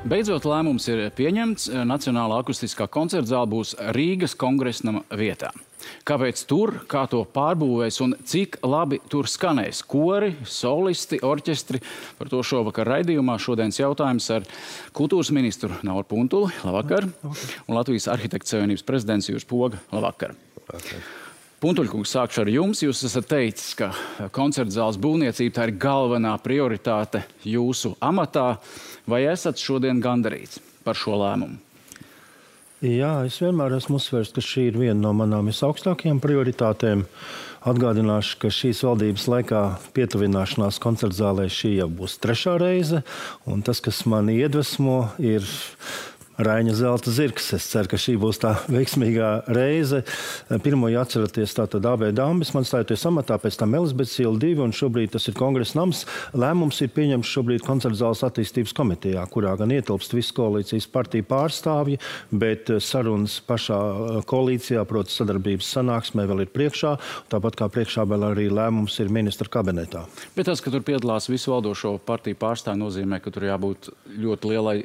Beidzot lēmums ir pieņemts. Nacionālā akustiskā koncerta zāle būs Rīgas Kongresnama vietā. Kāpēc tur, kā to pārbūvēs un cik labi tur skanēs kori, solisti, orķestri? Par to šovakar raidījumā šodienas jautājums ar kultūras ministru Nauru Puntuli. Labvakar. Un Latvijas arhitektu savienības prezidents Juris Poga. Labvakar. Puntuļkungs, sākšu ar jums. Jūs esat teicis, ka koncerta zāles būvniecība tā ir galvenā prioritāte jūsu amatā. Vai esat šodien gandarīts par šo lēmumu? Jā, es vienmēr esmu uzsvērs, ka šī ir viena no manām visaugstākajām prioritātēm. Atgādināšu, ka šīs valdības laikā pietuvināšanās koncerta zālē šī jau būs 3. reize. Un tas, kas mani iedvesmo, ir Raiņa zelta zirgs. Es ceru, ka šī būs tā veiksmīgā reize. Pirmo atceraties tātad AB Dambis, man stājoties amatā, pēc tam Elizabetes iela 2, un šobrīd tas ir Kongresa nams. Lēmums ir pieņemts šobrīd koncerta zāles attīstības komitejā, kurā gan ietilpst visu koalīcijas partiju pārstāvji, bet sarunas pašā koalīcijā, proti sadarbības sanāksmē, vēl ir priekšā. Tāpat kā priekšā vēl arī lēmums ir ministra kabinetā. Bet tas, ka tur piedalās visu valdošo partiju pārstāvji, nozīmē, ka tur jābūt ļoti lielai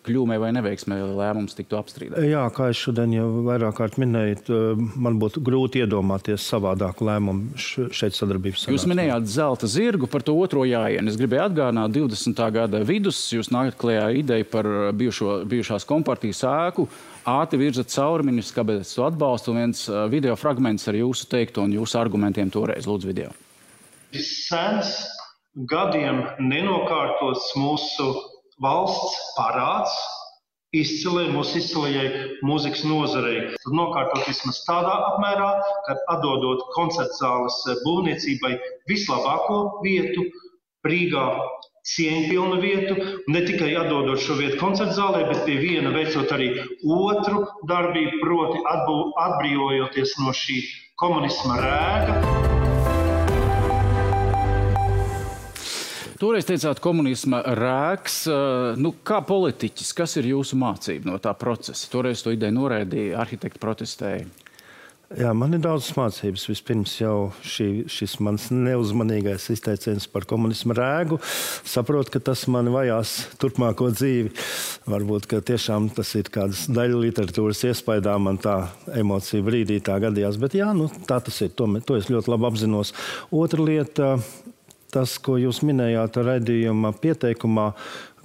kļūmē vai neveiksmē, lai lēmums tiktu apstrīdēts. Jā, kā es šodien jau vairāk kārt minēju, man būtu grūti iedomāties savādāku lēmumu šeit sadarbības sanāksmē. Jūs minējāt zelta zirgu, par to otro jāienu. Es gribēju atgādināt 20. gada vidus, jūs nākat klajā ideju par bijušās kompartijas ēku, ātri virzat cauri ministra kabinetes atbalstu, un viens video fragments ar jūsu teikto un jūsu argumentiem toreiz. Lūdzu, video. Sens, gadiem nenokārtots mūsu valsts parāds mūsu izcilajai mūzikas nozarei. Tad nokārtot vismaz tādā apmērā, ka atdodot koncerta zāles būvniecībai vislabāko vietu, Rīgā cieņpilnu vietu, ne tikai atdodot šo vietu koncerta zālē, bet pie viena veicot arī otru darbību, proti atbrīvojoties no šī komunisma rēga. Toreiz teicāt komunisma rēks. Kā politiķis, kas ir jūsu mācība no tā procesa? Toreiz to ideju noraidīja, arhitekti protestēja. Jā, man ir daudz mācības. Vispirms jau šis mans neuzmanīgais izteiciens par komunisma rēgu. Saprotu, ka tas mani vajās turpmāko dzīvi. Varbūt, ka tiešām tas ir kādas daļa literatūras iespaidā, man tā emocija brīdī tā gadījās. Bet jā, tā tas ir. To es ļoti labi apzinos. Otra lieta, tas, ko jūs minējāt raidījuma pieteikumā,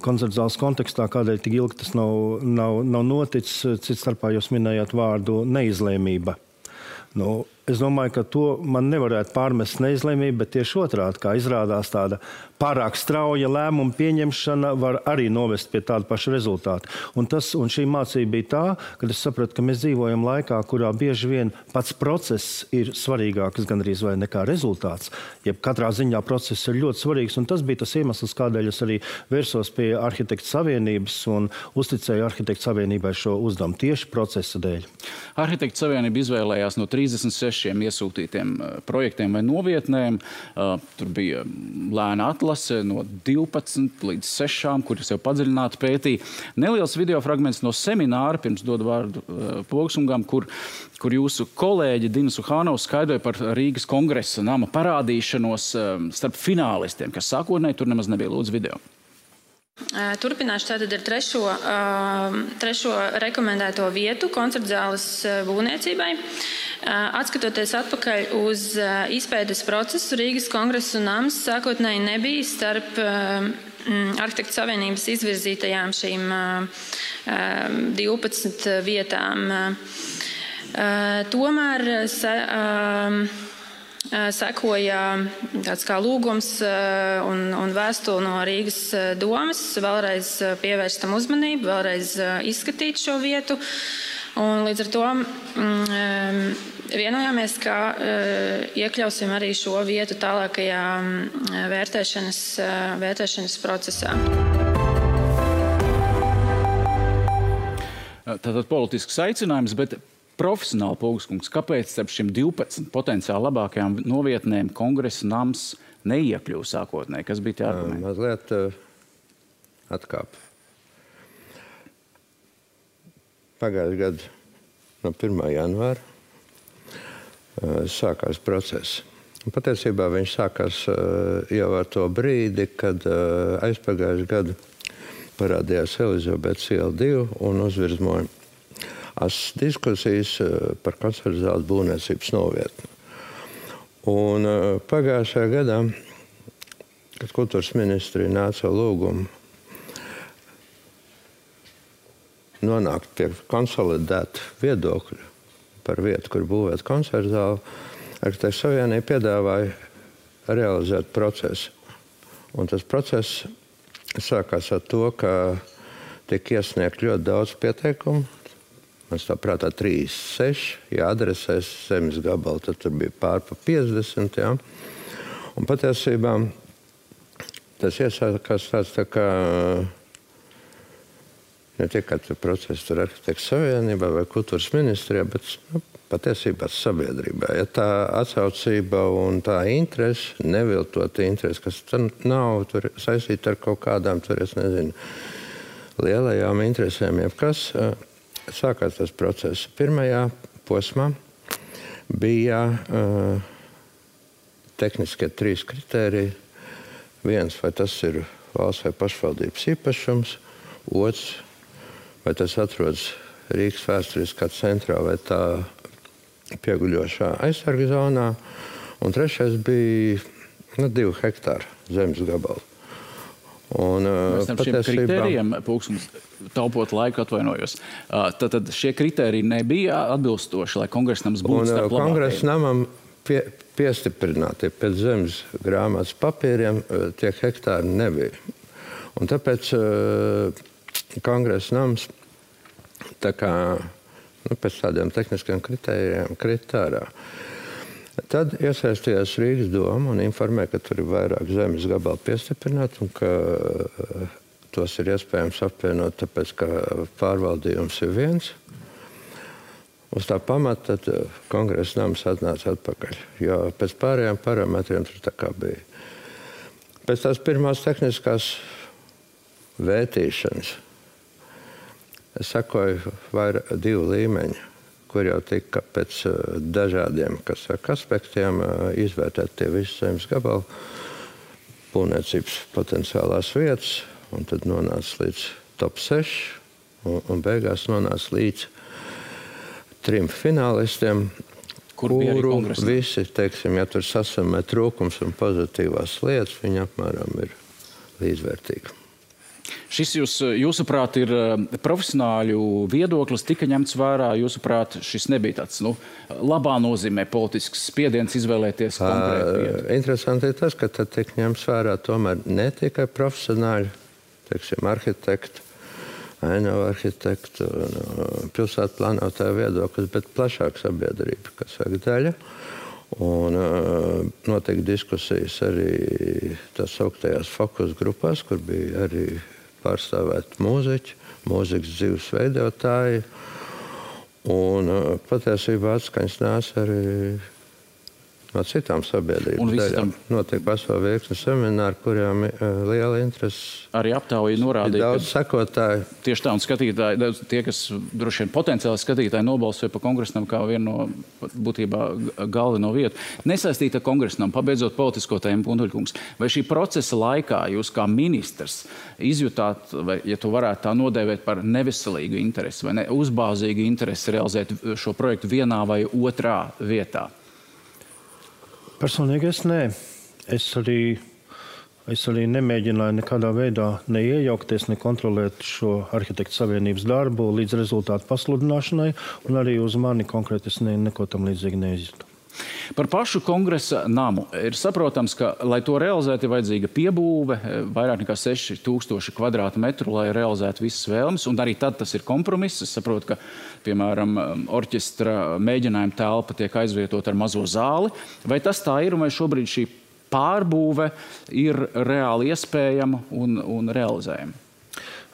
koncerta zāles kontekstā, kādēļ tik ilgi tas nav noticis, cits starpā jūs minējāt vārdu neizlēmība. Es domāju, ka to man nevarētu pārmest neizlēmību, bet tieši otrādi, kā izrādās tāda pārāk strauja lēmuma pieņemšana var arī novest pie tāda paša rezultāta. Un šī mācība bija tā, ka es sapratu, ka mēs dzīvojam laikā, kurā bieži vien pats process ir svarīgāks gandrīz vai nekā rezultāts. Jeb katrā ziņā process ir ļoti svarīgs, un tas bija tas iemesls, kādēļ es arī vērsos pie Arhitektu savienības un uzticēju Arhitektu savienībai šo uzdevumu tieši procesa dēļ. Arhitektu savienība izvēlējās no 36 iesūtītiem projektiem vai novietnēm. Tur bija lēna atlase no 12 līdz 6, kuras jau padziļināti pētīja. Neliels video fragments no semināra, pirms dodu vārdu Pogsungam, kur jūsu kolēģi Dina Suhānova skaidroja par Rīgas kongresa nama parādīšanos starp finālistiem, kas sākotnēji tur nemaz nebija. Lūdzu, video. Turpināšu tātad ar trešo rekomendēto vietu koncerta zāles būvniecībai. Atskatoties atpakaļ uz izpētes procesu, Rīgas kongresa nams sākotnēji nebija starp Arhitektu savienības izvirzītajām šīm 12 vietām. Tomēr sekoja tāds kā lūgums un vēstule no Rīgas domas vēlreiz pievērst tam uzmanību, vēlreiz izskatīt šo vietu. Un līdz ar to vienojāmies, ka iekļausim arī šo vietu tālākajā vērtēšanas procesā. Tātad politisks aicinājums, bet profesionāli Pogskungs, kāpēc starp šiem 12 potenciāli labākajām novietnēm kongresa nams neiekļuva sākotnēji? Kas bija tie argumenti? Mazliet atkāp. Pagājušajā gadā no 1. janvāra sākās process. Patiesībā viņš sākās jau ar to brīdi, kad aizpagājušajā gadu parādījās Elizabetes iela 2 un uzvirzmoja diskusijas par koncertu zāles būvniecības novietni. Un pagājušajā gadā, kad kultūras ministrija nāca lūgumu nonākt pie konsolidēta viedokļa par vietu, kur būvēt koncertu zāli, Arhitektu savienība piedāvāja realizēt procesu. Un tas process sākās ar to, ka tika iesniegt ļoti daudz pieteikumu. Man tā prātā 36, ja adresēs zemes gabalu, tad tur bija pār pa 50. Ja? Un patiesībā tas iesākās tāds tā kā ne tikai process tur Arhitektu savienībā vai kultūras ministrijā, bet patiesībā sabiedrībā. Ja tā atsaucība un tā interese, neviltota interese, kas nav tur saistīta ar kaut kādām, tur es nezinu, lielajām interesēm, jebkas, sākās tas process. Pirmajā posmā bija tehniskie 3 kritēriji. Viens, vai tas ir valsts vai pašvaldības īpašums. Otrs, vai tas atrodas Rīgas vēsturiskā centrā vai tā pieguļošā aizsarga zonā. Un trešais bija 2 hektāru zemes gabalu. Un, mēs tam šiem kritērijiem, Pulksums, taupot laiku atvainojos. Tad šie kritēriji nebija atbilstoši, lai kongresnams būtu starp labākajiem. Kongresnamam piestiprināti pēc zemes grāmatas papīriem tie hektāri nebija. Un tāpēc kongresnams tā kā pēc tādiem tehniskiem kritērijiem kritārā. Tad iesaistījās Rīgas doma un informēja, ka tur ir vairāk zemes gabalu piestiprināt un ka tos ir iespējams apvienot, tāpēc, ka pārvaldījums ir viens. Uz tā pamata tad kongresnams atnāca atpakaļ, jo pēc pārējām parametriem tur tā kā bija. Pēc tās pirmās tehniskās vērtīšanas es sakoju 2 līmeņi, kur jau tika pēc dažādiem aspektiem izvērtēt tie visi zemes gabali, būvniecības potenciālās vietas, un tad nonāca līdz top 6, un beigās nonāca līdz 3 finālistiem, kuru visi, teiksim, ja tur sasamē trūkums un pozitīvās lietas, viņi apmēram ir līdzvērtīgi. Šis jūsuprāt ir profesionāļu viedoklis, tika ņemts vērā, jūsuprāt, šis nebija tāds, labā nozīmē politisks spiediens izvēlēties konkrētu vietu? Interesanti ir tas, ka tad tiek ņemts vērā tomēr ne tikai profesionāļu, teiksim, arhitektu, ainavu arhitektu, pilsētu plānotāju viedoklis, bet plašāk sabiedrība, kas saka daļa. Un notiek diskusijas arī tās augtajās fokus grupās, kur bija arī pārstāvēt mūziķi, mūzikas dzīves veidotāji. Un patiesībā atskaņas nāca arī no citām sabiedrības daļām. Notiek vesela virkne semināru, kurām liela interese. Arī aptauja norādīja, daudz sekotāju. Tieši tā, un skatītāji, tie, kas droši vien potenciāli skatītāji nobalsoja par kongresnam kā vienu no būtībā galveno vietu. Nesaistīta kongresnam, pabeidzot politisko tēmu, Puntuļkungs, vai šī procesa laikā jūs kā ministrs izjutāt, vai, ja tu varētu tā nodēvēt par neveselīgu interesi vai uzbāzīgu interesi realizēt šo projektu vienā vai otrā vietā? Personīgi es nē. Es arī nemēģināju nekādā veidā neiejaukties, nekontrolēt šo arhitektu savienības darbu līdz rezultātu pasludināšanai, un arī uz mani konkrēti es neko tam līdzīgi neizjūtu. Par pašu kongresa namu ir saprotams, ka, lai to realizētu, ir vajadzīga piebūve, vairāk nekā 6000 kvadrātmetru, lai realizētu visas vēlmes, un arī tad tas ir kompromiss. Es saprotu, ka, piemēram, orķestra mēģinājuma telpa tiek aizvietot ar mazo zāli. Vai tas tā ir, un vai šobrīd šī pārbūve ir reāli iespējama un realizējama?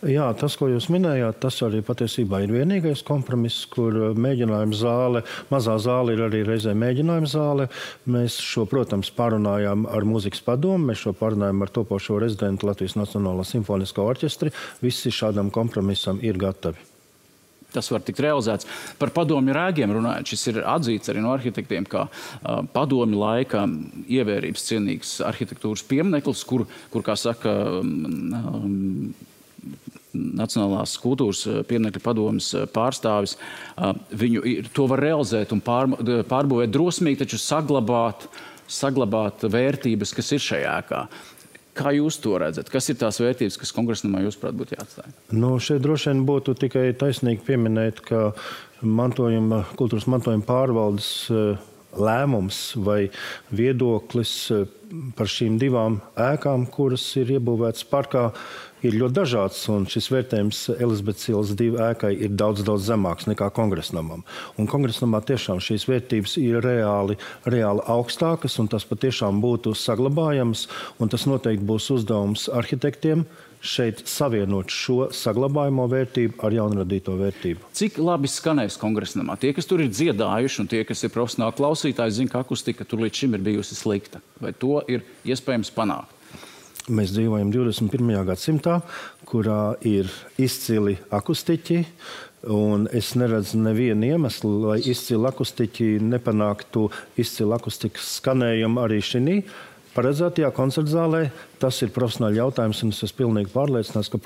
Jā, tas, ko jūs minējāt, tas arī patiesībā ir vienīgais kompromiss, kur mēģinājuma zāle, mazā zāle ir arī reizē mēģinājuma zāle. Mēs šo, protams, pārunājām ar mūzikas padomu, mēs šo pārunājām ar topošo rezidentu Latvijas Nacionālā simfoniskā orķestri. Visi šādam kompromisam ir gatavi. Tas var tikt realizēts. Par padomju rēgiem runājot, šis ir atzīts arī no arhitektiem, kā padomju laika ievērības cienīgs arhitektūras piemineklis, kur kā saka, Nacionālās kultūras pieminekļu padomes pārstāvis. To var realizēt un pārbūvēt drosmīgi, taču saglabāt vērtības, kas ir šajā ēkā. Kā jūs to redzat? Kas ir tās vērtības, kas kongresnamā jūsuprāt būtu jāatstāj? Šeit droši vien būtu tikai taisnīgi pieminēt, ka kultūras mantojuma pārvaldes lēmums vai viedoklis par šīm divām ēkām, kuras ir iebūvētas parkā, ir ļoti dažāds, un šis vērtējums Elizabetes ielas 2 ēkai ir daudz zemāks nekā kongresnamam. Un kongresnamā tiešām šīs vērtības ir reāli augstākas, un tas patiešām būtu saglabājams, un tas noteikti būs uzdevums arhitektiem šeit savienot šo saglabājamo vērtību ar jaunradīto vērtību. Cik labi skanēs kongresnamā? Tie, kas tur ir dziedājuši, un tie, kas ir profesionāli klausītāji, zina, ka akustika tur līdz šim ir bijusi slikta. Vai to ir iespējams panākt? Mēs dzīvojam 21. gadsimtā, kurā ir izcili akustiķi, un es neredzu nevienu iemeslu, lai izcili akustiķi nepanāktu izcili akustikas skanējumu arī šī paredzētajā koncertzālē. Tas ir profesionāli jautājums, un es esmu pilnīgi pārliecināts, ka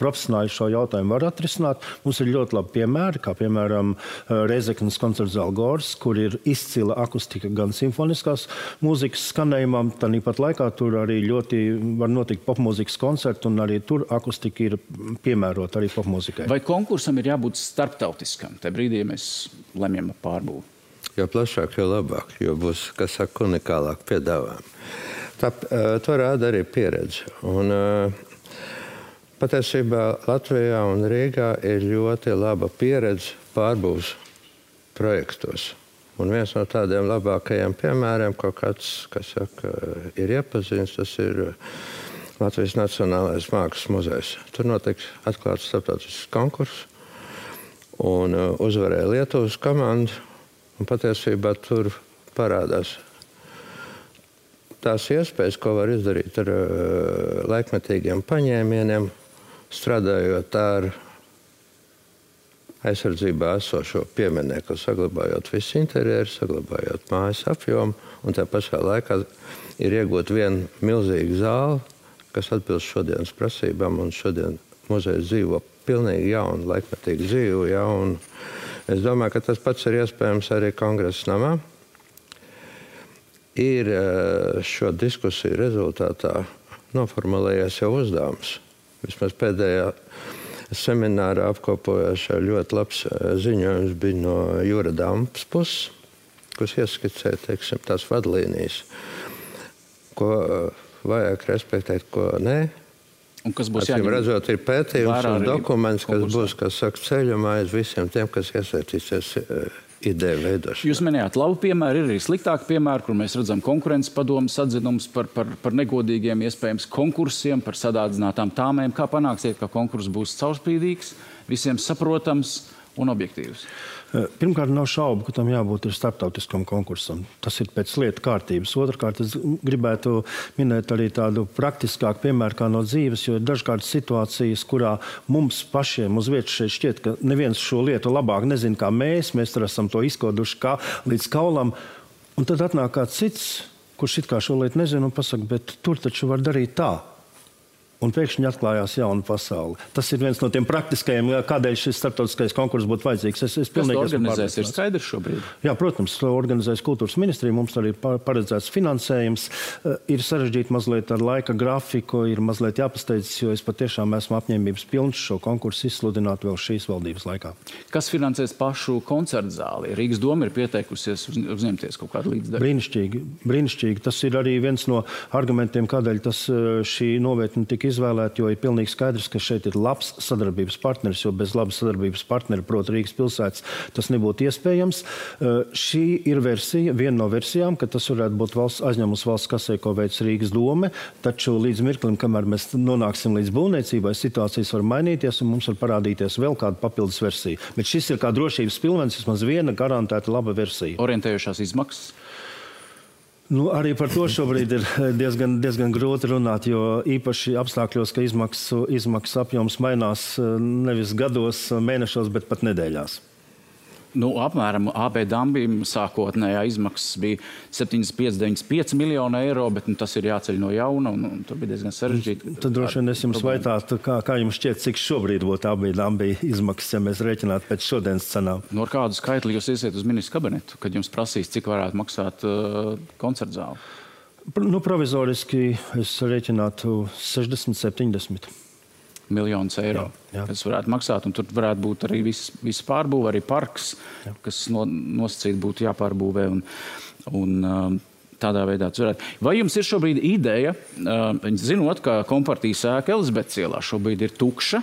profesionāļi šo jautājumu var atrisināt. Mums ir ļoti labi piemēri, kā piemēram Reizeknas koncertzāle Gors, kur ir izcila akustika gan simfoniskās mūzikas skanējumam, tāpat laikā tur arī ļoti var notikt popmūzikas koncerti, un arī tur akustika ir piemērota arī popmūzikai. Vai konkursam ir jābūt starptautiskam? Tajā brīdī mēs lemjam pārbūvi. Jo plašāk, jo labāk, jo būs, kas saka, unikālāk piedāvājumi. To rāda arī pieredze. Un, patiesībā Latvijā un Rīgā ir ļoti laba pieredze pārbūves projektos. Un viens no tādiem labākajiem piemēriem, ko kāds, kas saka, ir iepazīstams, tas ir Latvijas Nacionālais Mākslas muzejs. Tur notiks atklāts starptautisks konkurss, un uzvarēja Lietuvas komanda, un patiesībā tur parādās tās iespējas, ko var izdarīt ar laikmetīgiem paņēmieniem, strādājot ar aizsardzībā esošo pieminekli, saglabājot visu interjeru, saglabājot mājas apjomu, un tā pašā laikā ir iegūt vienu milzīgu zāli, kas atbilst šodienas prasībām, un šodien muzejs dzīvo pilnīgi jaunu, laikmetīgu dzīvu. Ja, un es domāju, ka tas pats ir iespējams arī Kongresa namā. Ir šo diskusiju rezultātā noformulējies jau uzdevums. Vismaz pēdējā seminārā apkopojošā ļoti labs ziņojums bija no Jūra Dampas puses, kas ieskicē, teiksim, tās vadlīnijas, ko vajag respektēt, ko nē. Un kas būs jāņem? Redzot, ir pētījums un dokuments, kas būs, kas saka, ceļumā aiz visiem tiem, kas iesaistīsies ideju veidošanā. Jūs minējāt labu piemēru, ir arī sliktāki piemēri, kur mēs redzam konkurences padomes atzinumus par negodīgiem iespējams konkursiem, par sadārdzinātām tāmēm. Kā panāksiet, ka konkurss būs caurspīdīgs, visiem saprotams un objektīvs? Pirmkārt, nav šaubu, ka tam jābūt starptautiskam konkursam. Tas ir pēc lietu kārtības. Otrkārt, es gribētu minēt arī tādu praktiskāku piemēru kā no dzīves, jo ir dažkārt situācijas, kurā mums pašiem uz vietas šeit šķiet, ka neviens šo lietu labāk nezina kā mēs tur esam to izkoduši kā līdz kaulam. Un tad atnāk kāds cits, kurš it kā šo lietu nezina un pasaka, bet tur taču var darīt tā. Un pēkšņi atklājās jauna pasaule. Tas ir viens no tiem praktiskajiem, kādēļ šis starptautiskais konkurss būtu vajadzīgs. Kas to organizēs, ir skaidrs šobrīd? Jā, protams, to organizēs kultūras ministrija. Mums arī paredzēts finansējums. Ir sarežģīti mazliet ar laika grafiku, ir mazliet jāpasteidzas, jo es patiešām esmu apņēmības pilns šo konkursu izsludināt vēl šīs valdības laikā. Kas finansēs pašu koncertzāli? Rīgas doma ir pieteikusies uzņemties kaut kādu līdzdaļu. Brīnišķīgi. Tas ir arī viens no argumentiem, kādēļ šī novietne tika izvēlēt, jo ir pilnīgi skaidrs, ka šeit ir labs sadarbības partneris, jo bez labas sadarbības partneri, proti Rīgas pilsētas, tas nebūtu iespējams. Šī ir versija, viena no versijām, ka tas varētu būt aizņēmums valsts kasē, ko veic Rīgas dome, taču līdz mirklim, kamēr mēs nonāksim līdz būvniecībai, situācijas var mainīties un mums var parādīties vēl kāda papildus versija. Bet šis ir kā drošības pilvens, vismaz viena garantēta laba versija. Orientējošās izmaksas? Arī par to šobrīd ir diezgan grūti runāt, jo īpaši apstākļos, ka izmaksu apjoms mainās nevis gados, mēnešos, bet pat nedēļās. Apmēram AB Dambim sākotnējā izmaksas bija 75,95 miljonu eiro, bet tas ir jāceļ no jauna, un tur bija diezgan sarežģīti. Tad droši vien es jums vaitātu, kā jums šķiet, cik šobrīd būtu AB Dambi izmaksas, ja mēs rēķinātu pēc šodienas cenām? No kādu skaitli jūs iesiet uz ministru kabinetu, kad jums prasīs, cik varētu maksāt koncertzāli? Provizoriski es rēķinātu 60-70 miljonus eiro, kas varētu maksāt, un tur varētu būt arī viss pārbūve, arī parks, kas nosacīt būtu jāpārbūvē, un tādā veidā tas varētu. Vai jums ir šobrīd ideja, zinot, ka kompartijas ēka Elizabetes ielā šobrīd ir tukša,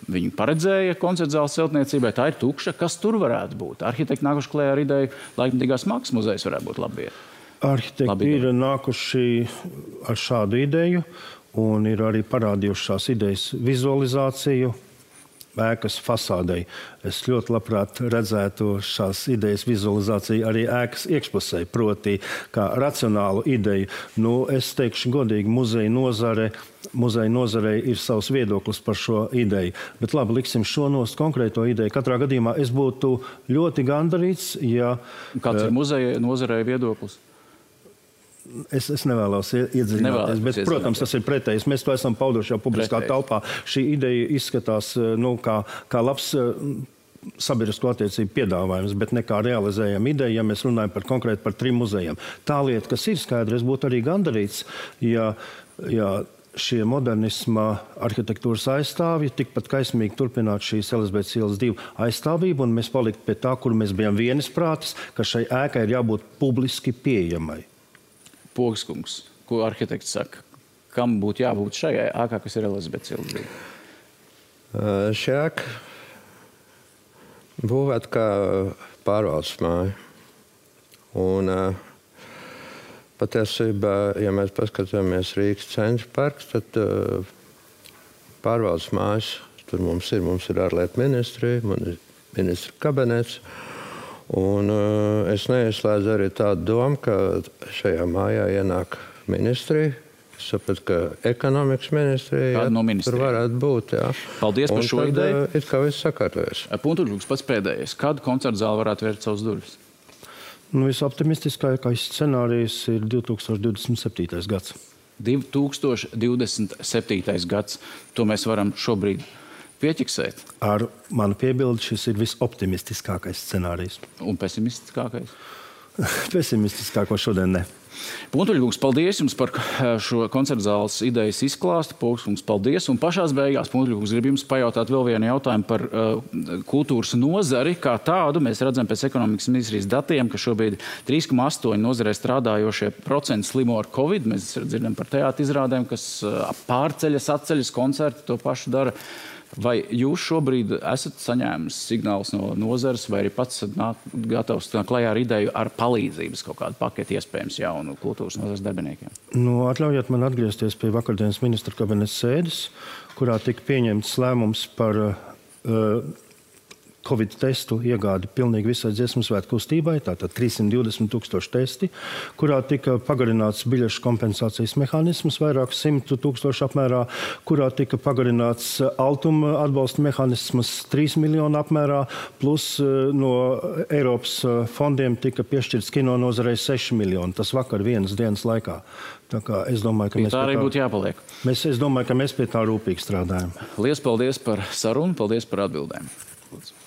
viņi paredzēja koncertzāles celtniecībai, tā ir tukša, kas tur varētu būt? Arhitekti nākuši klējā ar ideju, laikmatīgās mākslas muzejs varētu būt labi. Arhitekti ir nākuši ar šādu ideju, un ir arī parādījušās idejas vizualizāciju ēkas fasādei. Es ļoti labprāt redzētu šās idejas vizualizāciju arī ēkas iekšpusē, proti kā racionālu ideju. Es teikšu godīgi, muzeja nozarei ir savs viedoklis par šo ideju. Bet labi, liksim šo konkrēto ideju. Katrā gadījumā es būtu ļoti gandarīts, ja... Kāds ir muzeja nozarei viedoklis? Es nevēlos iedziļināties, bet, protams, tas ir pretējs. Mēs to esam pauduši jau publiskā telpā. Šī ideja izskatās kā labs sabiedrisko attiecību piedāvājums, bet ne kā realizējama ideja, ja mēs runājam konkrēti par 3 muzejiem. Tā lieta, kas ir skaidra, es būtu arī gandarīts, ja šie modernisma arhitektūras aizstāvji tikpat kaismīgi turpinātu šīs Elizabetes ielas 2 aizstāvību, un mēs paliktu pie tā, kur mēs bijām vienisprātis, ka šai ēkai ir jābūt publiski pieejamai. Pogskungs, ko arhitekts saka, kam būtu jābūt šajā ēkā, kas ir Elizabetes ielas 2? Šī ēka būvēta kā pārvaldes māja. Un patiesībā, ja mēs paskatāmies Rīgas centra parks, tad pārvaldes mājas tur mums ir ārlietu ministrija, ministra kabinets. Un es neizslēdzu arī tādu domu, ka šajā mājā ienāk ministrija. Es sapratu, ka ekonomikas ministrija tur varētu būt. Jā. Paldies par šo ideju. It kā viss sakārtojas. Puntuļkungs pats pēdējais. Kādu koncertzāli varētu vērt savus durvis? Visoptimistiskākais scenārijs ir 2027. gads. 2027. gads. To mēs varam šobrīd pieķiksēt. Ar manu piebildi šis ir visoptimistiskākais scenārijs. Un pesimistiskākais? Pesimistiskāko šodien ne. Puntuļkungs, paldies jums par šo koncertzāles idejas izklāstu. Pogskungs, paldies. Un pašās beigās, Puntuļkungs, grib jums pajautāt vēl vienu jautājumu par kultūras nozari kā tādu. Mēs redzam pēc ekonomikas ministrijas datiem, ka šobrīd 3,8 nozarē strādājošie procenti slimo ar Covid. Mēs dzirdam par teātra izrādēm, kas pārceļas, atceļas, koncerti to pašu dara. Vai jūs šobrīd esat saņēmis signālus no nozares, vai arī pats gatavs klajā ar ideju ar palīdzības kaut kādu paketi iespējams jaunu kultūras nozares darbiniekiem? Atļaujiet man atgriezties pie vakardienas ministra kabineta sēdes, kurā tika pieņemts lēmums par Covid testu iegādi pilnīgi visai Dziesmu svētku kustībai, tātad 320,000 testi, kurā tika pagarināts biļešu kompensācijas mehānisms vairāk 100,000 apmērā, kurā tika pagarināts altuma atbalsta mehānisms 3 miljonu apmērā, plus no Eiropas fondiem tika piešķirts kino nozarei 6 miljoni. Tas vakar vienas dienas laikā. Tā kā es domāju, ka tā arī būtu jāpaliek. Es domāju, ka mēs pie tā rūpīgi strādājam. Liels paldies par sarunu, paldies par atbildēm. Lūdzu.